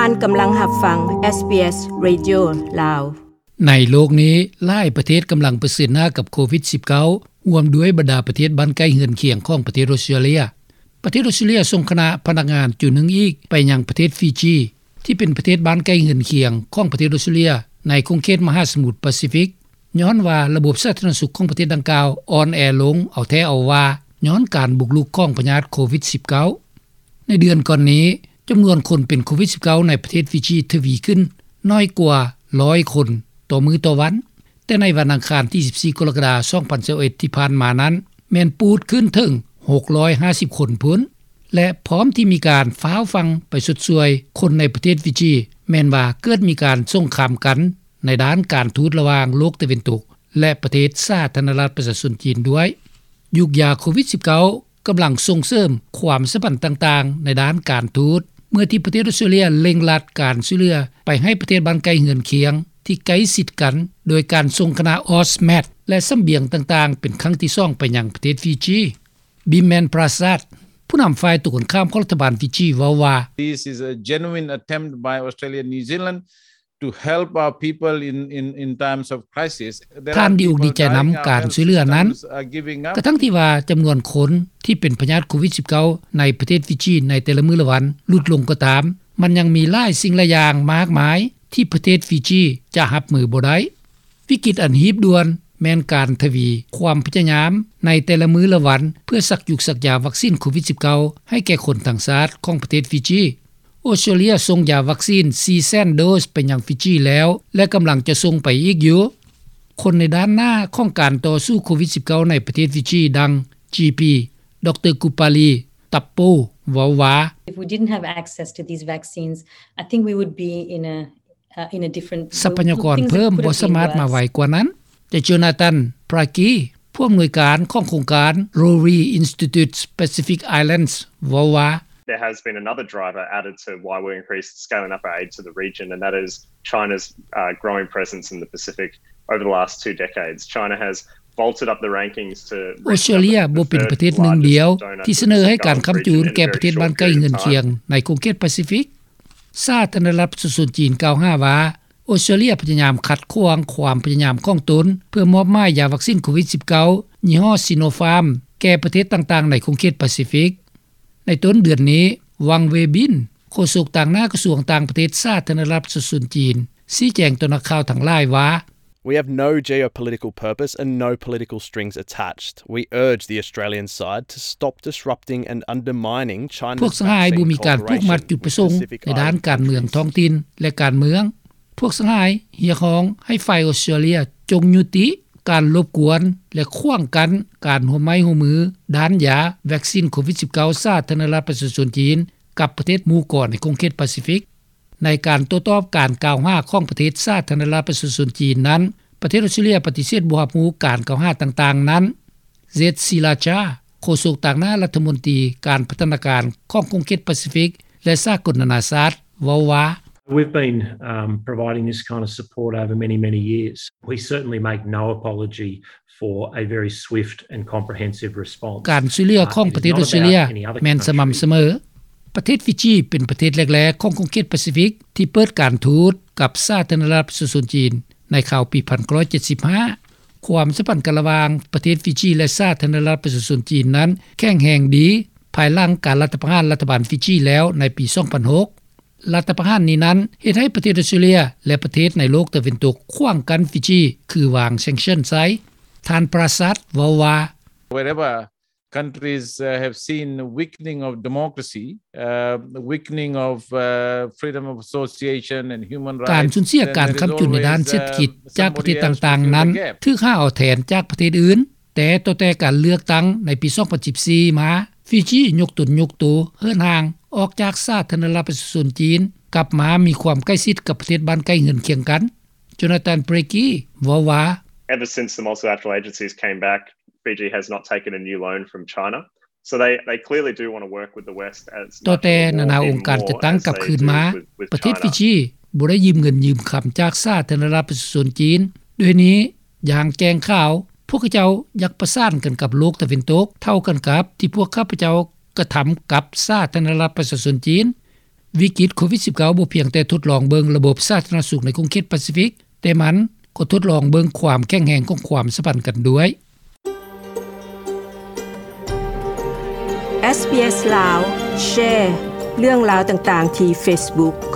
ທ່ານກຳລັງຮັບຟັງ ເອສບີເອສ Radio ລາວ. ໃນໂລກນີ້ ຫຼາຍປະເທດກຳລັງປະເຊີນໜ້າກັບໂຄວິດສິບເກົ້າ ຮ່ວມດ້ວຍບັນດາປະເທດບ້ານໃກ້ເຮືອນຄຽງຂອງປະເທດອົດສະຕຣາເລຍ. ປະເທດອົດສະຕຣາເລຍສົ່ງຄະນະພະນັກງານຈຸໜຶ່ງອີກໄປຍັງປະເທດຟີຈີ ທີ່ເປັນປະເທດບ້ານໃກ້ເຮືອນຄຽງຂອງປະເທດອົດສະຕຣາເລຍ ໃນຂົງເຂດມະຫາສະໝຸດປາຊີຟິກ, ຍ້ອນວ່າລະບົບສາທາລະນະສຸກຂອງປະເທດດັ່ງກ່າວອ່ອນແອລົງເອົາແທ້ເອົາວ່າ ຍ້ອນການບຸກລຸກຂອງພະຍາດໂຄວິດສິບເກົ້າ. ໃນເດືອນກ່ອນນີ້ ຈຳນວນຄົນເປັນໂຄວິດສິບເກົ້າໃນປະເທດຟີຈີທະວີຂຶ້ນໜ້ອຍກວ່າຮ້ອຍຄົນຕໍ່ມື້ຕໍ່ວັນ, ແຕ່ໃນວັນອັງຄານທີສິບສີ່ ກໍລະກະດາ ສອງພັນຊາວເອັດ ທີ່ຜ່ານມານັ້ນ ແມ່ນປູດຂຶ້ນເຖິງຫົກຮ້ອຍຫ້າສິບຄົນພຸ້ນ ແລະ ພ້ອມທີ່ມີການຟ້າວຟັ່ງໄປຊົດຊ່ວຍຄົນໃນປະເທດຟີຈີ ແມ່ນວ່າເກີດມີການສົງຄາມກັນໃນດ້ານການທູດລະຫວ່າງໂລກຕາເວັນຕົກ ແລະ ປະເທດສາທາລະນະລັດປະຊາຊົນຈີນດ້ວຍ. ຍຸກຢາໂຄວິດສິບເກົ້າ ກຳລັງສົ່ງເສີມຄວາມສຳພັນຕ່າງໆໃນດ້ານການທູດ ເມື່ອທີ່ປະເທດອົດສະຕຣາເລຍເລັ່ງລັດການຊ່ວຍເຫຼືອໄປໃຫ້ປະເທດບ້ານໃກ້ເຮືອນຄຽງທີ່ໃກ້ຊິດກັນ ໂດຍການສົ່ງຄະນະ AUKUS ແລະ ສະບຽງຕ່າງໆເປັນຄັ້ງທີສອງໄປຍັງປະເທດຟີຈີ. ບິມແມນ ປຣາຊາດ ຜູ້ນຳຝ່າຍຕົງກັນຂ້າມຂອງລັດຖະບານຟີຈີ ເວົ້າວ່າ This is a genuine attempt by Australia and New Zealand to help our people in, in, in times of crisis. ທ່ານດີອົກດີໃຈນຳການຊ່ວຍເຫຼືອນັ້ນ ກະທັ່ງທີ່ວ່າຈຳນວນຄົນທີ່ເປັນພະຍາດໂຄວິດສິບເກົ້າໃນປະເທດຟີຈີໃນແຕ່ລະມື້ລະວັນຫຼຸດລົງກໍຕາມ, ມັນຍັງມີຫຼາຍສິ່ງຫຼາຍຢ່າງມາກມາຍທີ່ປະເທດຟີຈີຈະຮັບມືບໍ່ໄດ້. ວິກິດອັນຮີບດ່ວນແມ່ນການທະວີຄວາມພະຍາຍາມໃນແຕ່ລະມື້ລະວັນ ເພື່ອສັກຢູກສັກຢາວັກຊີນໂຄວິດສິບເກົ້າໃຫ້ແກ່ຄົນທັງຊາດຂອງປະເທດຟີຈີ. ອົດສະຕຣາເລຍສົ່ງຢາວັກຊີນສີ່ແສນໂດສໄປຍັງຟີຈີແລ້ວ ແລະ ກຳລັງຈະສົ່ງໄປອີກຢູ່. ຄົນໃນດ້ານໜ້າຂອງການຕໍ່ສູ້ໂຄວິດສິບເກົ້າໃນປະເທດຟີຈີ ດັ່ງ ຈີພີ ດຣ ກູປາລີ ຕັບໂປ ເວົ້າວ່າ If we didn't have access to these vaccines, I think we would be in a, uh, in a different ຊັບພະຍາກອນເພີ່ມບໍ່ສາມາດມາໄວກວ່ານັ້ນ. ແຕ່ Jonathan Pracky ຜູ້ອຳນວຍການຂອງໂຄງການ Rooree Institute Pacific Islands ເວົ້າວ່າ There has been another driver added to why we increased scaling up our aid to the region, and that is China's, uh, growing presence in the Pacific over the last two decades. China has vaulted up the rankings to ອົດສະຕຣາເລຍບໍ່ເປັນປະເທດໜຶ່ງດຽວທີ່ສະເໜີໃຫ້ການຄ້ຳຈູນແກ່ປະເທດບ້ານໃກ້ເຮືອນຄຽງໃນຂົງເຂດປາຊີຟິກ. ສາທາລະນະລັດປະຊາຊົນຈີນກ່າວຫາວ່າ ອົດສະຕຣາເລຍພະຍາຍາມຂັດຂວາງຄວາມພະຍາຍາມຂອງຕົນ ເພື່ອມອບໝາຍຢາວັກຊີນໂຄວິດສິບເກົ້າ ຍີ່ຫໍ້ Sinopharm ແກ່ປະເທດຕ່າງໆໃນຂົງເຂດປາຊີຟິກ. ໃນຕົ້ນເດືອນນີ້ ວັງ ເວບິນ ໂຄສົກຕາງໜ້າກະຊວງຕ່າງປະເທດສາທາລະນະລັດປະຊາຊົນຈີນ ຊີ້ແຈງຕໍ່ນັກຂ່າວທັງຫຼາຍວ່າ We have no geopolitical purpose and no political strings attached. We urge the Australian side to stop disrupting and undermining China's vaccine cooperation with Pacific Island countries. ພວກສະຫາຍບໍ່ມີການຜູກມັດຈຸດປະສົງໃນດ້ານການເມືອງທ້ອງຖິ່ນ ແລະ ການເມືອງ. ພວກສະຫາຍຮຽກຮ້ອງໃຫ້ຝ່າຍອົດສະຕຣາເລຍຈົ່ງຍຸຕິການລົບກວນ ແລະ ຂວາງກັ້ນການຮ່ວມໄມ້ຮ່ວມມືດ້ານຢາວັກຊີນໂຄວິດສິບເກົ້າ ສາທາລະນະລັດປະຊາຊົນຈີນ ກັບປະເທດໝູ່ກອນໃນຂົງເຂດປາຊີຟິກ. ໃນການໂຕ້ຕອບການກ່າວຫາຂອງປະເທດສາທາລະນະລັດປະຊາຊົນຈີນນັ້ນ, ປະເທດອົດສະຕຣາເລຍປະຕິເສດບໍ່ຮັບຮູ້ການກ່າວຫາຕ່າງໆນັ້ນ. ເຈັດ ສີລາຈາ ໂຄສົກຕາງໜ້າລັດຖະມົນຕີການພັດທະນາການຂອງຂົງເຂດປາຊີຟິກ ແລະ ສາກົນນານາຊາດ ເວົ້າວ່າ We've been, um, providing this kind of support over many, many years. We certainly make no apology for a very swift and comprehensive response. ການຊ່ວຍເຫຼືອຂອງປະເທດອົດສະຕຣາເລຍແມ່ນສະໝ່ຳສະເໝີ. ປະເທດຟີຈີເປັນປະເທດແລກໆຂອງຂົງເຂດປາຊີຟິກທີ່ເປີດການທູດກັບສາທາລະນະລັດປະຊາຊົນຈີນໃນຄາວປີພັນເກົ້າຮ້ອຍເຈັດສິບຫ້າ. ຄວາມສຳພັນກັນລະຫວ່າງປະເທດຟີຈີ ແລະ ສາທາລະນະລັດປະຊາຊົນຈີນນັ້ນແຂງແຮງດີ ພາຍຫຼັງການລັດຖະປະຫານລັດຖະບານຟີຈີແລ້ວໃນປີສອງພັນຫົກ. ລັດຖະປະຫານນີ້ນັ້ນເຮັດໃຫ້ປະເທດອົດສະຕຣາເລຍ ແລະ ປະເທດໃນໂລກຕາເວັນຕົກຂວາງກັ້ນຟີຈີ ຄືວາງ sanction ໃສ່. ທ່ານ ປຣາຊາດ ເວົ້າວ່າ Wherever countries, uh, have seen weakening of democracy, uh, weakening of, uh, freedom of association and human rights, ການສູນເສຍການຄ້ຳຈຸນໃນດ້ານເສດຖະກິດຈາກປະເທດຕ່າງໆນັ້ນ ຖືກຫາເອົາແທນຈາກປະເທດອື່ນ. ແຕ່ຕໍ່ແຕ່ການເລືອກຕັ້ງໃນປີສອງພັນສິບສີ່ມາ, ຟີຈີຍົກຕົນຍົກໂຕເຫີນຫ່າງອອກຈາກສາທາລະນະລັດປະຊາຊົນຈີນ ກັບມາມີຄວາມໃກ້ຊິດກັບປະເທດບ້ານໃກ້ເຮືອນຄຽງກັນ. ໂຈນາຕັນ ເບຣກີ ເວົ້າວ່າ Ever since the multilateral agencies came back, Fiji has not taken a new loan from China. So they, they clearly do want to work with the West as ຕໍ່ແຕ່ນານາອົງການຈັດຕັ້ງກັບຄືນມາ, ປະເທດຟີຈີບໍ່ໄດ້ຢືມເງິນຢືມຄຳຈາກສາທາລະນະລັດປະຊາຊົນຈີນ. ດ້ວຍນີ້, ຢ່າງແຈ້ງຂາວ, ພວກເຂົາເຈົ້າຢາກປະສານກັນກັບໂລກຕາເວັນຕົກ ເທົ່າກັນກັບທີ່ພວກຂ້າພະເຈົ້າກະທຳກັບສາທາລະນະລັດປະຊາຊົນຈີນ. ວິກິດໂຄວິດ-19 ບໍ່ພຽງແຕ່ທົດລອງເບິ່ງລະບົບສາທາລະນະສຸກໃນຂົງເຂດປາຊີຟິກ, ແຕ່ມັນກໍທົດລອງເບິ່ງຄວາມແຂງແຮງຂອງຄວາມສຳພັນກັນດ້ວຍ. ເອສ ບີ ເອສ ລາວ ແຊ ເລື່ອງລາວຕ່າງໆທີ່ເຟສບຸກ.